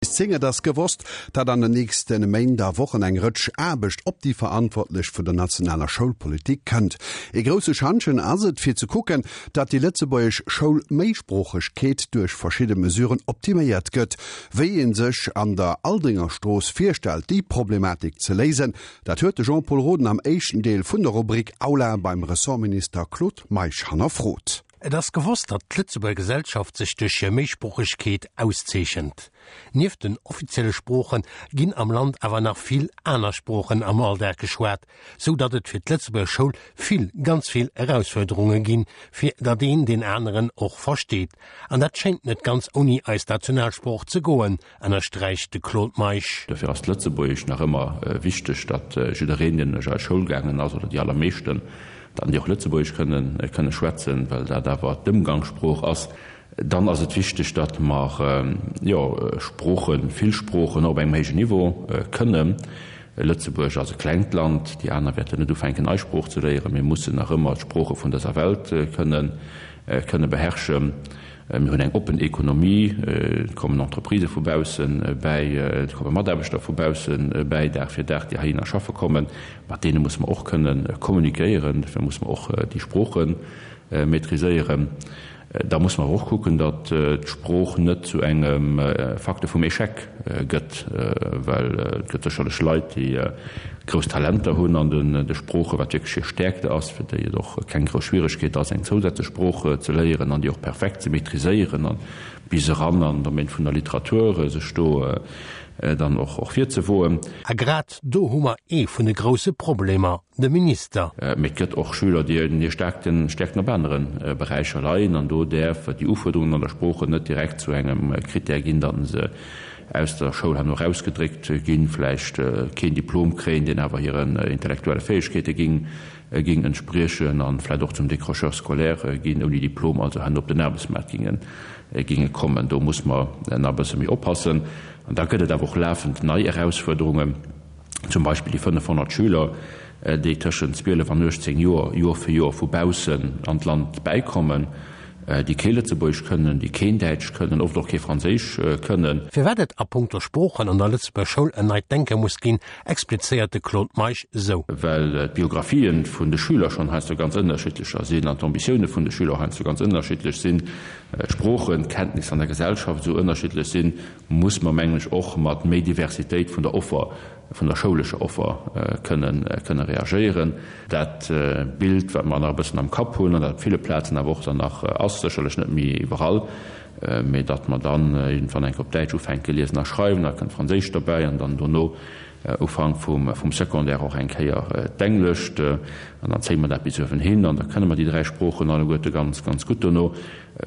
Bis 10 Et ass gewosst, datt an den nächste Méint a Wochen eng Rëtsch Aarbecht op déi Verantwortlech vun der nationaler Schoulpolitik kënnt. Ee grousse Schantjen ass et, fir ze kucken, datt déi lëtzebuergesch Schoulméisproochegkeet duerch verschidde Mesuren optiméiert gëtt. Wéi ee sech an der Aldringerstrooss virstellt, déi Problematik ze léisen, dat huet de Jean-Pol Roden am éischten Deel vun der Rubrik Aula beim Ressortminister Claude Meisch hannerfrot. Et ass gewosst, datt d'Lëtzebuerger Gesellschaft sech duerch hir Méisproochegkeet auszeechent. Nieft den offizielle Sprooche ginn am Land awer nach vill aner Sproochen am Alldag geschwat, sou datt et fir d'Lëtzebuerger Schoul vill, ganz vill Erausfuerderunge ginn, fir datt een deen aneren och versteet. An dat schéngt net ganz ouni eis Nationalsprooch ze goen, ënnersträicht de Claude Meisch. Dofir ass d'Lëtzebuergesch nach ëmmer wichteg, datt jiddereen, deen duerch eis Schoul gaangen ass, oder déi allermeeschten, dann déi och Lëtzebuergesch kënnen, kënne schwätzen, well dat awer d'Ëmgangssprooch ass. Dann ass et wichteg, datt mer, jo, Sproochen, vill Sproochen och op engem héijen Niveau kënnen. Lëtzebuerg ass e klengt Land, déi aner wäerten net ufänken, eis Sprooch ze léieren. Mir mussen nach ëmmer d'Sprooche vun dëser Welt kënnen, kënne beherrschen. Mir hunn eng oppen Ekonomie, et kommen Entreprisë vu bausse bäi, et komme Mataarbechter vu bausse bäi, Dag fir Dag, déi heihinner schaffe kommen. Mat deene musse mer och kënne kommunikéieren, dofir musse mer och déi Sprooche maîtriséieren. Da musse mer awer och kucken, datt d'Sprooch net zu engem Facteur vum Échec gëtt, well et gëtt sécherlech Leit, déi grouss Talenter hunn an de Sproochen, wat wierklech hir Stäerkte ass, fir déi et och keng grouss Schwieregkeet ass, eng zousätzlech Sprooch ze léieren an déi och perfekt ze maîtriséieren an bis eran an den Domaine vun der Literatur sech do dann och virzewoen. A grad do hu mer ee vun de grousse Problemer, de Minister. Mee et gëtt och Schüler, déi hir Stäerkten op anere Beräicher leien an do däerf déi Ufuerderungen an der Sprooche net direkt zu engem Critère ginn, datt se aus der Schoul herno erausgedréckt ginn, vläicht keen Diplom kréien, deen awer hiren intellektuelle Fäegkeete ging ging entspriechen an vläicht och zum Décrocheur scolaire ginn, ouni Diplom also herno op den Aarbechtsmaart ginge ginge kommen. Do muss mer nach e bësse méi oppassen. An da gëtt et awer och lafend nei Erausfuerderungen, zum Beispill déi 500 Schüler, déi tëschent 12 an 18 Joer Joer fir Joer vu baussen an d'Land bäikommen, déi kee Lëtzebuergesch kënnen, déi keen Däitsch kënnen, oft och kee Franséisch kënnen. Firwat et a punkto Sproochen an der Lëtzebuerger Schoul en neit Denke muss ginn, explizéiert de Claude Meisch esou. Well d'Biographien vun de Schüler schonn heiansdo ganz ënnerschiddlecher sinn an d'Ambitioune vun de Schüler och heiansdo ganz ënnerschiddlech sinn, d'Sproochenkenntnisser an der Gesellschaft esou ënnerschiddlech sinn, muss mer, mengen ech, och mat méi Diversitéit vun der Offer, vun der schoulescher Offer kënnen, kënne reagéieren. Dat Bild, wat mer nach e bëssen am Kapp hunn an dat op ville Plazen awer och dann nach ass, sécherlech net méi iwwerall, mee datt mer dann iergendwann eng Kéier op Däitsch ufänke liesen a schreiwen, da kënnt Franséisch derbäi an dann dono Ufank vum, vum Secondaire och eng Kéier d'Englescht an dann zéie mer dat bis uewen hin an da kënne mer déi dräi Sproochen alleguerte ganz, ganz gutt dono.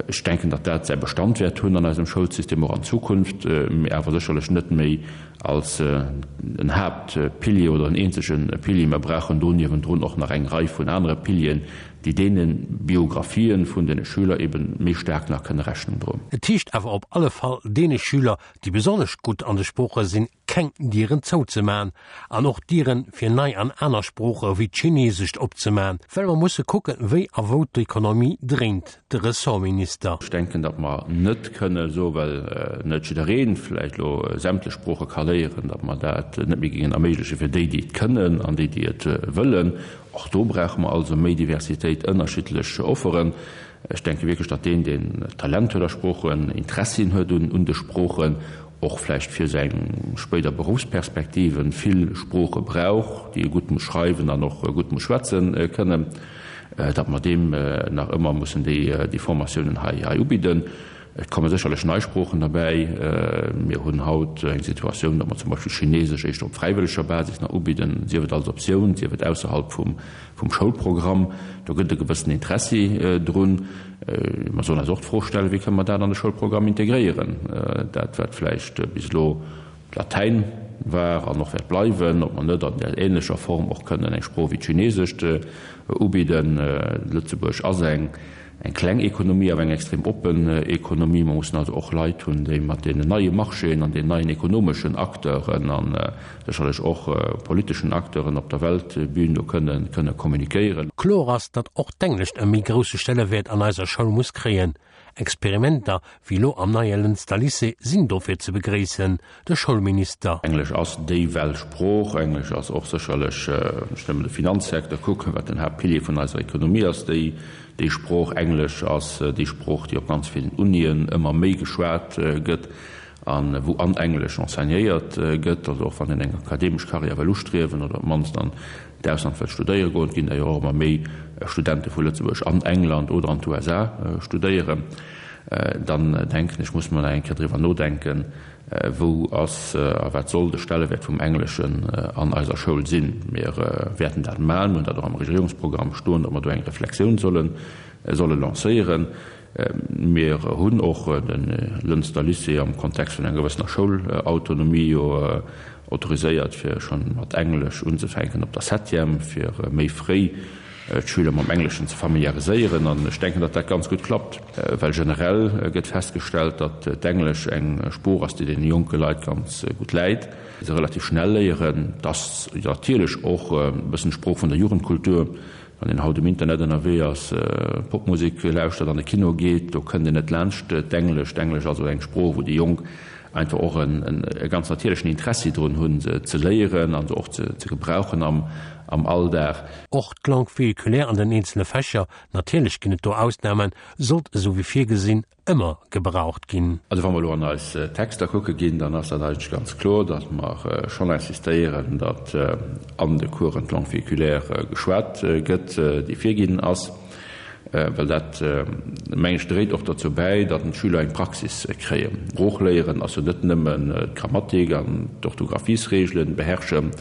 Ech denken, datt dat säi Bestand wäert hunn an eisem Schoulsystem och an Zukunft, mee awer sécherlech net méi als en Haaptpilier oder en eenzege Pilier. Mer brauchen do niewendrun och nach eng Rei vun anere Pilieren, déi deene Biographien vun deene Schüler ebe méi staark nach kënne Rechnung droen. Et heescht awer op alle Fall, deene Schüler, déi besonnesch gutt an de Sprooche sinn, keng Dieren zouzeman an och Dieren fir nei an aner Sprooche wéi d'Chinesescht opzeman, well mer musse kucken, wéi a wou d'Ekonomie dréint. De Ressortminister. Ech denken, datt mer net kënne soen, well net jidderee vläicht elo sämtlech Sprooche ka léieren, datt mer dat net méi géingen erméigleche fir déi, déi et kënnen an déi, déi et wëllen. Och do brauche mer also méi Diversitéit, ënnerschiddlech Offeren. Ech denke wierklech, datt deen, deen Talent huet a Sproochen, Interessien huet un de Sproochen, och vläicht fir seng spéider Beruffsperspektiven vill Sprooche brauch, déi e gutt muss schreiwen an och gutt muss schwätze kënnen, datt mer deem nach ëmmer mussen déi Formatiounen hei ubidden. Et komme sécherlech nei Sproochen derbäi. Mir hunn haut eng Situatioun, datt mer zum Beispill Chinesesch éischter op fräiwëlleger Basis nach ubidden, sief et als Optioun, sief et ausserhalb vum Schoulprogramm. Do gëtt e gewëssen Interessi drun. Mer sollen eis och d'Fro stellen, Wéi kënne mer dat an de Schoulprogramm integréieren? Dat, wat vläicht bis elo Latäin war an och wäert bleiwen, ob mer net an där ähnlecher Form och kënnen eng Sprooch wéi d'Chinesescht ubidden. Lëtzebuerg ass eng kleng Ekonomie, awer eng extrem oppen Ekonomie. Mer mussen also och Leit hunn, déi mat deenen neie Marchéen an den neien ekonomeschen Acteuren a sécherlech och politeschen Acteuren op der Weltbün do kënnen kënne kommunikéieren. Kloer ass, datt och d'Englescht e méi grousse Stellewäert an eiser Schoul muss kréien. Experimenter wéi elo am neie Lënster Lycée sinn dofir ze begréissen, de Schoulminister. Englesch ass déi Weltsprooch. Englesch ass och sécherlech, wann ech nëmmen de Finanzsecteur kucken, wat den Haaptpilier vun eiser Ekonomie ass, déi déi Sprooch. Englesch ass déi Sprooch, déi op ganz villen Unien ëmmer méi geschwat gëtt a wou an Englesch enseignéiert gëtt. Also och wann een eng akademesch Karriär wëll ustriewen oder op d'mannst an d'Ausland wëll studéiere goen, et ginn der jo och ëmmer méi Studente vu Lëtzebuerg an England oder an d'USA studéieren, dann denken ech, muss mer nach eng Kéier driwwer nodenken, wou ass a wat soll de Stellewäert vum Engleschen an eiser Schoul sinn. Mir wäerten dat maachen, mir hunn dat och am Regierungsprogramm stoen, datt mer do eng Reflexioun solle solle lancéieren. Mir hunn och de Lënster Lycée am Kontext vun enger gewëssener Schoulautonomie jo autoriséiert, fir schonn mat Englesch unzefänken op der Septième, fir méi fréi d'Schüler mam Engleschen ze familiariséieren. An ech denken, datt dat ganz gutt klappt, well generell gëtt festgestellt, datt d'Englesch eng Sprooch ass, déi deene jonke Leit ganz gutt läit, se relativ schnell léieren. Et ass natierlech och e bëssen d'Sprooch vun der Jugendkultur. Wann een haut um Internet ënnerwee ass, Popmusek lauschtert, an de Kino geet, do kënnt een net laanscht d'Englesch. D'Englesch ass also eng Sprooch, wou déi Jonk einfach och e ganz natierlechen Interessi drun hunn, se ze léieren a se och ze gebrauchen am Alldag. Och d'Langue véhiculaire an den eenzele Fächer, natierlech ginn et do Ausnamen, sollt esou wéi virgesinn ëmmer gebraucht ginn. Also wa mer elo an eis Texter kucke ginn, dann ass dat eigentlech ganz kloer, datt mer schonn insistéieren, datt an de Coursen d'Langue véhiculaire geschwat gëtt, déi virginn ass, well dat, mengen ech, dréit och derzou bäi, datt d'Schüler eng Praxis kréien. Sprooch léieren ass jo net nëmmen d'Grammatik an d'Orthographiesregelen beherrschen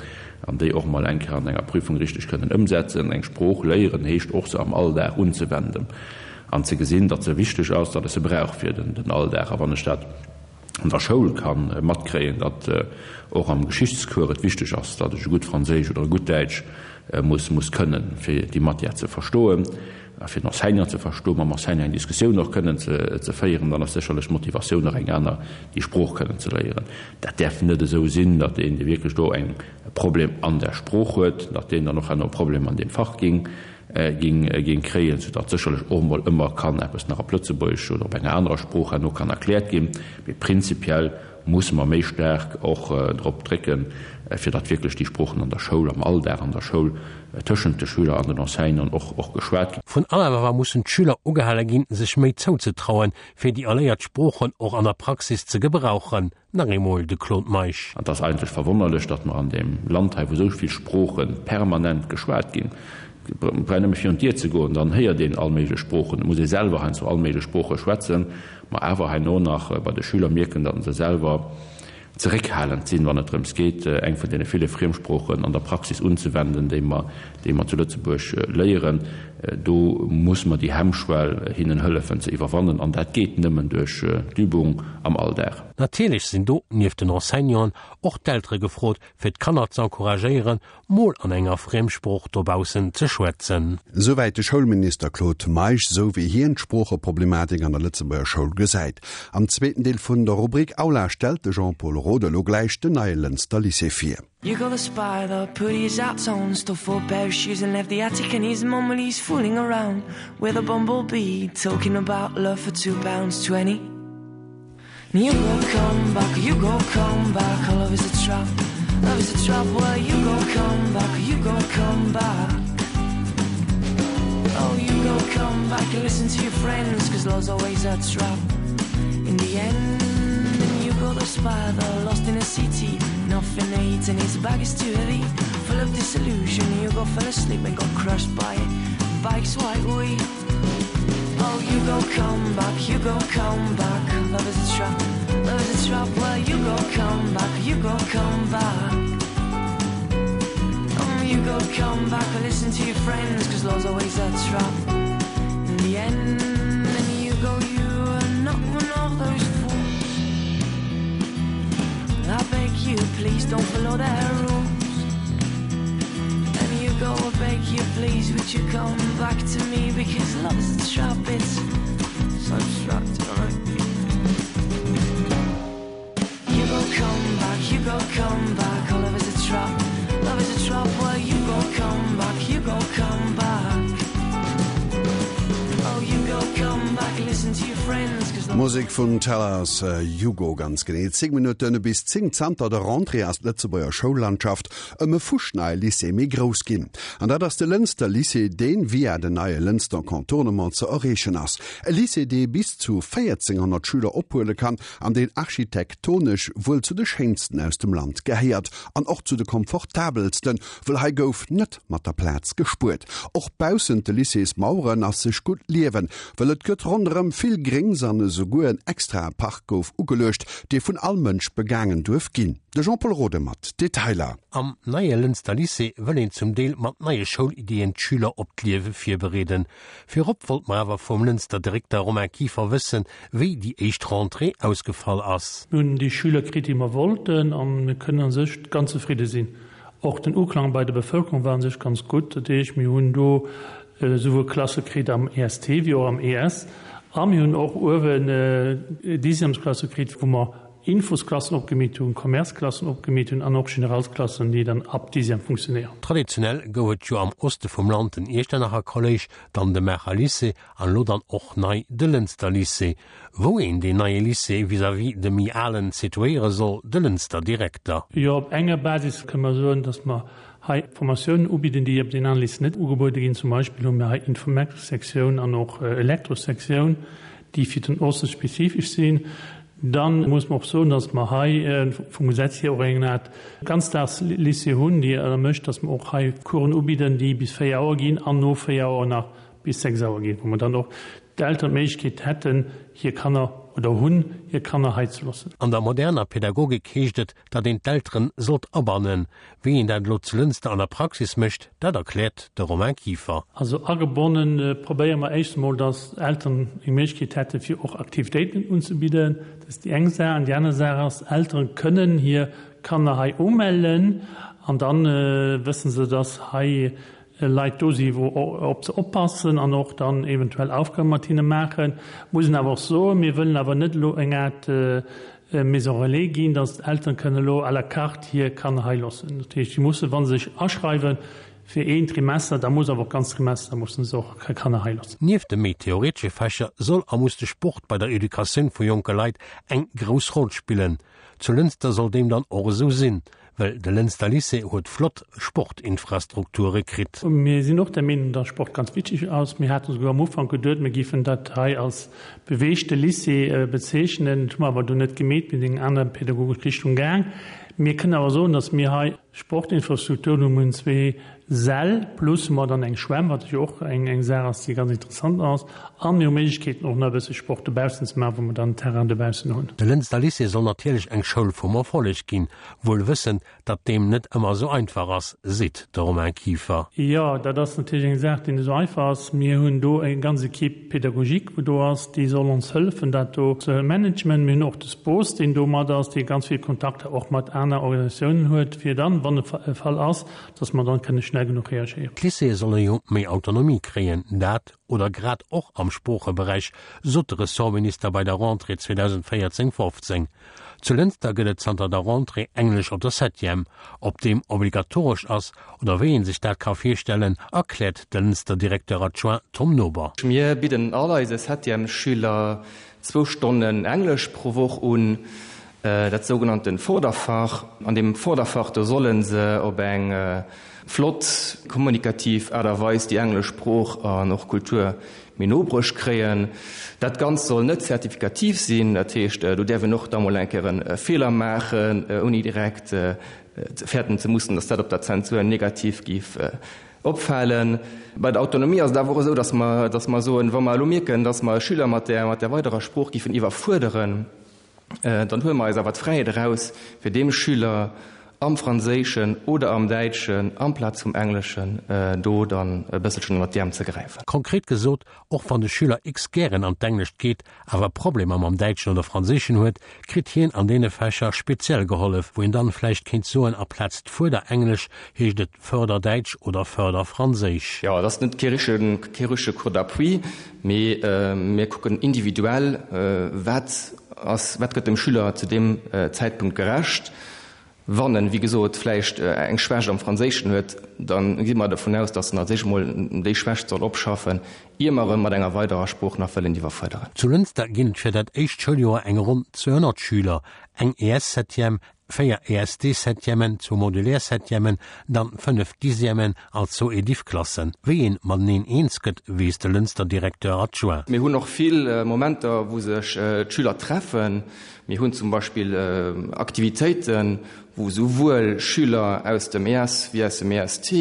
an déi och emol eng Kéier an enger Prüfung richteg kënnen ëmsetzen. Eng Sprooch léieren heescht och, se am Alldag unzewenden. An ze gesinn, datt se wichteg ass, datt ech se brauch fir den Alldag. A wann ech dat an der Schoul ka matkréien, datt och am Geschichtscours et wichteg ass, datt ech e gutt Franséisch oder e gutt Däitsch muss muss kënnen, fir déi Matière ze verstoen a fir den Enseignant ze verstoen, mam Enseignant eng Diskussioun och kënnen ze féieren, dann ass sécherlech d'Motivatioun och eng aner, déi Sprooch kënnen ze léieren. Dat däerf net esou sinn, datt een, dee wierklech do eng e Problem an der Sprooch huet, datt deen dann och herno e Problem an deem Fach géing ging kréien, soudatt sécherlech och emol ëmmer kann eppes nach op Lëtzebuergesch oder op enger anerer Sprooch herno kann erkläert ginn. Mee prinzipiell musse mer méi staark och drop drécken, fir datt wierklech déi Sproochen an der Schoul, am Alldag an der Schoul tëschent de Schüler an den Enseignanten och och geschwat ginn. Vun allem awer mussen d'Schüler ugehale ginn, sech méi zouzetrauen, fir déi erléiert Sproochen och an der Praxis ze gebrauchen. Nach eemol de Claude Meisch. An et ass eigentlech verwonnerlech, datt mer an deem Land hei, wou esou vill Sprooche permanent geschwat ginn, et brauch een nëmme virun d'Dier ze goen, dann héiert een all méiglech Sproochen, et muss ee selwer heiansdo all méiglech Sprooche schwätzen, mer awer herno nach bei de Schüler mierken, datt se selwer zeréckhalend sinn, wann et drëms geet, eng vun deene ville Friemsproochen an der Praxis unzewenden, déi mer, déi mer zu Lëtzebuerg léieren. Do muss mer déi Hemmschwell hinnen hëllefen ze iwwerwannen, an dat geet nëmmen duerch d'Übung am Alldag. Natierlech sinn do, nieft den Enseignanten, och d'Eltere gefrot, fir d'Kanner z'encouragéieren, mol an enger Friemsprooch dobaussen ze schwätzen. Souwäit de Schoulminister Claude Meisch, sou wéi hien d'Sproocheproblematik an der Lëtzebuerger Schoul gesäit. Am zweeten Deel vun der Rubrik Aula stellt de Jean-Paul Roth elo gläich den neie Lënster Lycée vir. You got the spider, put his out on, stole four pair of shoes and left the attic and his mum while he's fooling around with a bumblebee, talking about love for £2.20. You go come back, you go come back, oh, love is a trap, love is a trap, well you go come back, you go come back. Oh, you go come back and listen to your friends, cause love's always a trap. In the end, and you got the spider lost in a city, nothing to eat and his bag is too heavy, full of disillusion, you go fell asleep and got crushed by bike's white wheel. Oh, you go come back, you go come back, love is a trap, love is a trap, well you go come back, you go come back. Um, you go come back or listen to your friends, cause love's always a trap. In the end, and you go, you are not one of those fools. I beg you, please don't follow their rules. And you go, I beg you, please, would you come back to me? Because love is a trap, it's so abstract, right? You go come back, you go come back, oh, love is a trap, love is a trap, well you go come back, you go come back. Oh, you go come back, listen to your friends. Musek vun Tellers Hugo, ganz genee 10 Minutten bis 10. Zanter der Rentrée ass d'Lëtzebuerger Schoullandschaft ëm e fuschneie Lycée méi grouss ginn. An dat ass de Lënster Lycée, deen via den neie Lënster Contournement ze erreechen ass. E Lycée, dee bis zu 1.400 Schüler ophuele kann an deen architektonesch wuel zu de schéinsten aus dem Land gehéiert an och zu de komfortabelsten, wëll hei gouf net mat der Plaz gespuert. Och baussent de Lycéesmaueren ass sech gutt liewen, wëll et gëtt ronderëm vill Gréngs an esouguer en extrae Park gouf ugeluecht, dee vun all Mënsch begaangen duerf ginn. De Jean-Pol Rode mat Detailer. Am neie Lënster Lycée wëll een zum Deel mat neie Schoulideen d'Schüler op d'Liewe virbereeden. Virop wollt mer awer vum Lënster Direkter Romain Kieffer wëssen, wéi déi éischt Rentrée ausgefall ass. Mir hunn déi Schüler kritt, déi mer wollten, a mir kënnen a sech ganz zefridde sinn. Och den Uklang bei der Bevëlkerung war un sech ganz gutt. Dat heescht, mir hunn do esouwuel Klasse kritt am EST wéi och am ES. A mir hunn och uewen Dixièmesklasse kritt, wou mer Infosklassen opgemeet hunn, Commerceklassen opgemeet hunn an och Generalsklassen, déi dann ab Dixième funktionéieren. Traditionell gouf et jo am Oste vum Land den Iechternacher Kolléisch, dann de Maacher Lycée An elo dann och nei de Lënster Lycée. Wou een deen neie Lycée vis-à-vis dem méi alen situéiere soll, de Lënster Direkter. Jo, op enger Basis kënne mer soen, dass mer hei Formatiounen ubidden, déi op den anere Lycéeën net ugebuede ginn. Zum Beispill hu mir hei Informatikssektioun an och Elektrossektioun, déi fir den Oste spezifesch sinn. Dann muss mer och soen, dass mer hei vum Gesetz hier och eng Art Ganzdagslycée hunn, déi ermécht, dass mer och hei Coursen ubidden, déi bis 4 Auer ginn an no 4 Auer nach bis 6 Auer ginn, wou mer dann och d'Elteren d'Méiglechkeet hätten, hir Kanner, oder hunn, hir Kanner hei ze loossen. An der moderner Pädagogik heescht et, datt een d'Elteren sollt abannen. Wéi een dat elo zu Lënster an der Praxis mécht, dat erkläert de Romain Kieffer. Also agebonnen probéiere mer éischt emol, datt d'Elteren eng Méiglechkeet hätten, fir och Aktivitéiten unzebidden. Dat ass déi eng Saach. An déi aner Saach ass, Eltere kënnen hir Kanner hei umellen an da wësse se, datt hei Leit do si wou op se oppassen an och dann eventuell Aufgabe mat hinne maachen. Muss een awer och soen, mir wëllen awer net elo eng Aart Maison relais ginn, datt d'Elteren kënnen elo à la carte hir Kanner hei loossen. Dat heescht, si mussen, wa se sech aschreiwen fir een Trimester, da muss awer och d'ganz Trimester mussen se och hir Kanner hei loossen. Nieft de méi theoretesche Fächer soll a muss de Sport bei der Educatioun vu jonke Leit eng grouss Roll spillen. Zu Lënster soll deem dann och esou sinn, well de Lënster Lycée huet flott Sportinfrastrukture kritt. Mir sinn och der Meenung, dass Sport ganz wichtig ass. Mir hate souguer am Ufank geduet, mir géifen dat hei als beweegte Lycée bezeechnen. Dat hu mer awer dunn net gemeet, mir sinn eng aner pädagogesch Richtung gaang. Mir kënnen awer soen, dass mir hei Sportinfrastrukturen hunn. Mir hunn zwee Säll plus hu mer dann eng Schwämm, wat jo och eng Saach ass, déi ganz interessant ass. A mir hu Méiglechkeeten, och nach e bësse Sport dobaussen ze maachen, wou mer dann en Terrain dobaussen hunn. De Lënster Lycée soll natierlech eng Schoul vum Erfolleg ginn, wuel wëssend, datt deem net ëmmer esou einfach ass, seet de Romain Kieffer. Jo, dat ass natierlech eng Saach, déi net esou einfach ass. Mir hunn do eng ganz Equipe pédagogique, wou do ass, déi soll ons hëllefen, dat do ze managen. Mir hunn och de SPOS, deen do mat ass, dee ganz vill Kontakter och mat aner Organisatiounen huet, fir dann, wann e Fall ass, dass mer dann kënne schnell genuch reagéieren. D'Lycéeë solle jo méi Autonomie kréien, dat, oder grad och am Sproocheberäich, sot de Ressortminister bei der Rentrée 2014, 15. Zu Lënster gëtt et zanter der Rentrée Englesch op der Septième. Ob deem obligatoresch ass oder wéi ee sech dat ka virstellen, erkläert de Lënster Directeur adjoint Tom Nober. Mir bidden all eise Septièmesschüler zwou Stonnen Englesch pro Woch un, dat sougenannten Vorderfach. An deem Vorderfach, do solle se op eng flott, kommunikativ Aart a Weis déi englesch Sprooch an och Kultur méi no bruecht kréien. Dat Ganzt soll net zertifikativ sinn, dat heescht, do däerf een och da mol eng Kéier e Feeler maachen, ouni direkt fäerten ze mussen, datt dat op der Zensur negativ géif Opfalen. Bei der Autonomie ass et awer och esou, dass mer, dass mer soen, wa mer elo mierken, dass mer e Schüler mat där, mat där weiderer Sprooch géifen iwwerfuerderen, dann huele mer eis awer d'Fräiheet eraus, fir deem Schüler am Franséischen oder am Däitschen amplaz vum Engleschen do dann e bësselchen ënnert d'Äerm ze gräifen. Konkret gesot, Och wann de Schüler X gären an d'Englescht geet, awer Problemer mam Däitschen oder Franséischen huet, kritt hien an deene Fächer speziell gehollef, wou een dann vläicht kéint soen, aplaz d'Fuerderenglesch heescht et Förderdäitsch oder Förderfranséisch. Jo, et ass net kee richtegen, kee richtege Cours d'appui, mee mir kucken individuell, wat ass, wat gëtt dem Schüler zu deem Zäitpunkt gerecht. Wann en, wéi gesot, vläicht eng Schwächt am Franséischen huet, da gi mer dovun aus, datt en als éischt emol déi Schwächt soll opschaffen, ier mer e mat enger weiderer Sprooch nach wëllen iwwerfuerderen. Zu Lënster ginn et fir dat éischt Schouljoer eng ronn 200 Schüler, eng ES-Septième, 4 ESD-Septièmen, zwou Modulaire-Septièmen, dann 5 Dixièmen an zwou Ediff-Klassen. Wéi een mateneen eens gëtt, weess de Lënster Directeur adjoint. Mir hunn och vill Momenter, wou sech d'Schüler treffen. Mir hunn zum Beispill Aktivitéiten, wou souwuel Schüler aus dem ES wéi aus dem EST,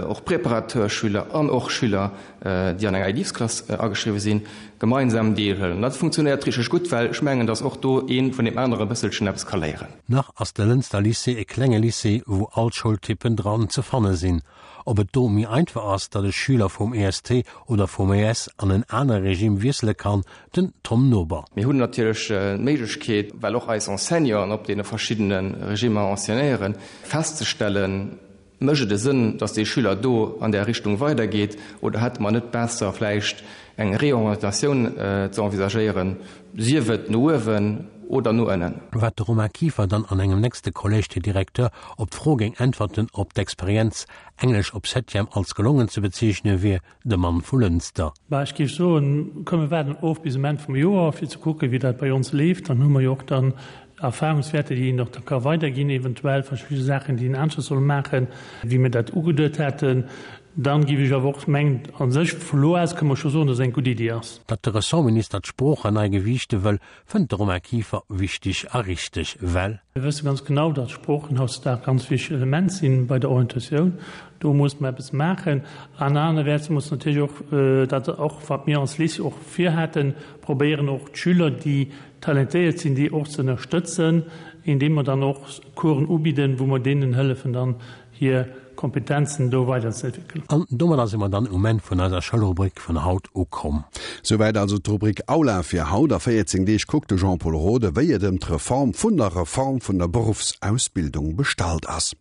och Préparateur-Schüler an och Schüler, déi an enger Ediffsklass ageschriwwe sinn, gemeinsam deelhuelen. Dat funktionéiert richteg gutt, well ech mengen, datt och do ee vun deem anere e bësselchen eppes ka léieren. Nach ass de Lënster Lycée e klenge Lycée, wou all d'Schoultyppen dran ze fanne sinn. Ob et do méi einfach ass, datt e Schüler vum EST oder vum ES an en anere Regime wiessele kann, den Tom Nober. Mir hunn natierlech d'Méiglechkeet, well och eis Enseignanten op deene verschiddene Regimmer enseignéieren, festzestellen, Mécht et e Sënn, datt dee Schüler do an där Richtung weidergeet oder hätte mer net besser vläicht eng Reorientatioun ze envisagéieren, sief et no uewen oder no ënnen? Wat de Romain Kieffer dann an engem nächste Collège des Directeurs op d'Fro géing äntwerten, ob d'Experienz Englesch op Septième als gelongen ze bezeechne wier, de Mann vu Lënster. Bah, ech géif soen, komm mir waarden of bis um Enn vum Joer, fir ze kucken, wéi dat bei ons leeft. Dann hu mer jo och dann Erfahrungswäerter, déi een och da ka weiderginn, eventuell verschidde Saachen, déi een aneschters soll maachen, wéi mir dat ugeduet haten. Dann géif ech awer och mengen, a sech vu lo aus kënne mer scho soen, dass et eng gutt Iddi ass. Datt de Ressortminister d'Sproochen nei gewiichte wëll, fënnt de Romain Kieffer wichteg a richteg, well. Mir wësse ganz genau, datt Sproochen hautdesdaags ganz wichteg Element sinn bei der Orientatioun. Do muss mer eppes maachen. An anerwäerts muss natierlech och, dat och wat mir als Lycée och virhaten, probéieren och d'Schüler, déi talentéiert sinn, déi och ze ënnerstëtzen, indeem mer dann och Coursen ubidden, wou mer deenen hëllefen dann hir Kompetenzen do weiderzeentwéckelen. An domadder si mer dann um Enn vun eiser Schoulrubrik vun haut ukomm. Souwäit also d'Rubrik Aula fir haut. A 14 Deeg kuckt de Jean-Pol Rode, wéi et ëm d'Reform vun der Reform vun der Beruffsausbildung bestallt ass.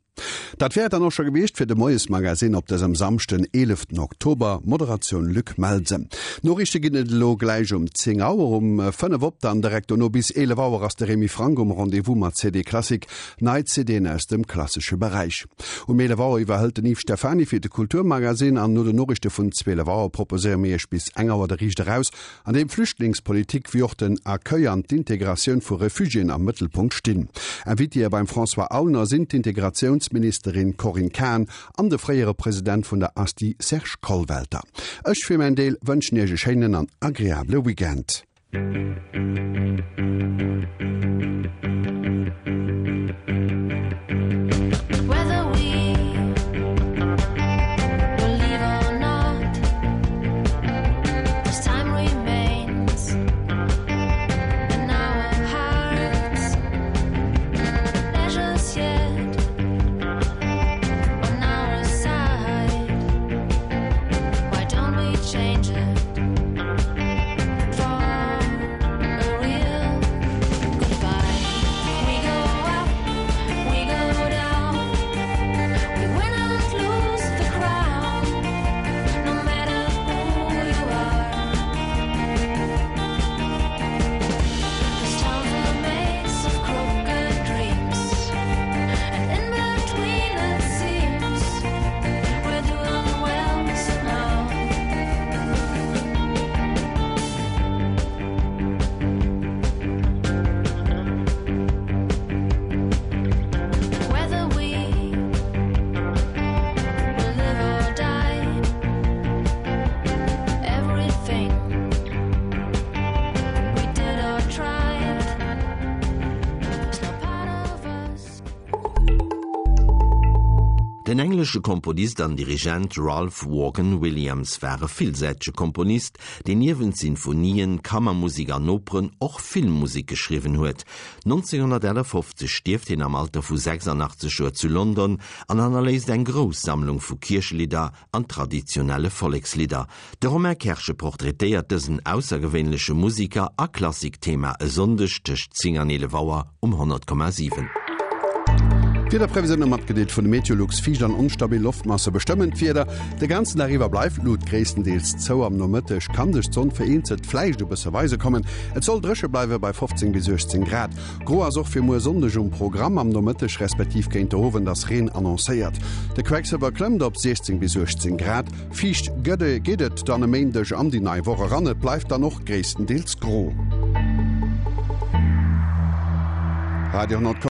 Dat wär et dann och scho gewiescht fir de Moiesmagazin op dësem Samschden, 11 Oktober. Moderatioun Luc Melsen. Noriichte ginn et elo gläich um 10 Auer. Um 5 op dann direkt dono bis 11 Auer ass de Remy Franck um Rendez-vous mat CD Classic. Nei CDen aus dem klassesche Beräich. Um 11 Auer iwwerhëlt den Yves Stephany fir de Kulturmagazin an no den Noriichte vun 12 Auer proposéiere mir Iech bis eng Auer de Riicht eraus, an deem Flüchtlingspolitik wéi och den Accueil an d'Integratioun vu Refugiéen am Mëttelpunkt stinn. Invitéë beim François Aulner sinn d'Integratiounsministerin Corinne Cahen an de fréiere President vun der ASTI Serge Kollwelter. Ech fir mäin Deel wënschen Iech e schéinen an agreabele Weekend. Den englesche Komponist an Dirigent Ralph Vaughan Williams war e villsäitege Komponist, deen niewent Sinfonien, Kammermusek an Operen och Filmmusek geschriwwen huet. 1951 stierft hien am Alter vu 86 Joer zu London an hannerléisst eng grouss Sammlung vu Kierchelidder an traditionelle Vollekslidder. De Romain Kerschen portraitéiert dësen aussergewéinleche Musiker a Klassikthema e Sonndeg tëscht 10 an 11 Auer um 100,7. D'Wiederprevisioune matgedeelt vun de Meteolux, Fiicht an onstabil Loftmasse bestëmmen d'Wieder. De ganzen Dag iwwer bleift d'Lut gréisstendeels zou. Am Nomëtteg kann sech d'Sonn vereenzelt vläicht e bësse weise kommen. Et soll dréche bleiwe bei 15 bis 18 Grad. Gro ass och fir muer Sonndeg um Programm, am Nomëtteg respektiv géint de Owend ass Reen annoncéiert. De Quecksëlwer klëmmt op 16 bis 18 Grad. Fiicht gëtt geet et dann e Méindeg an déi nei Woch eran, et bleift dann och gréisstendeels gro. Radio 10,7.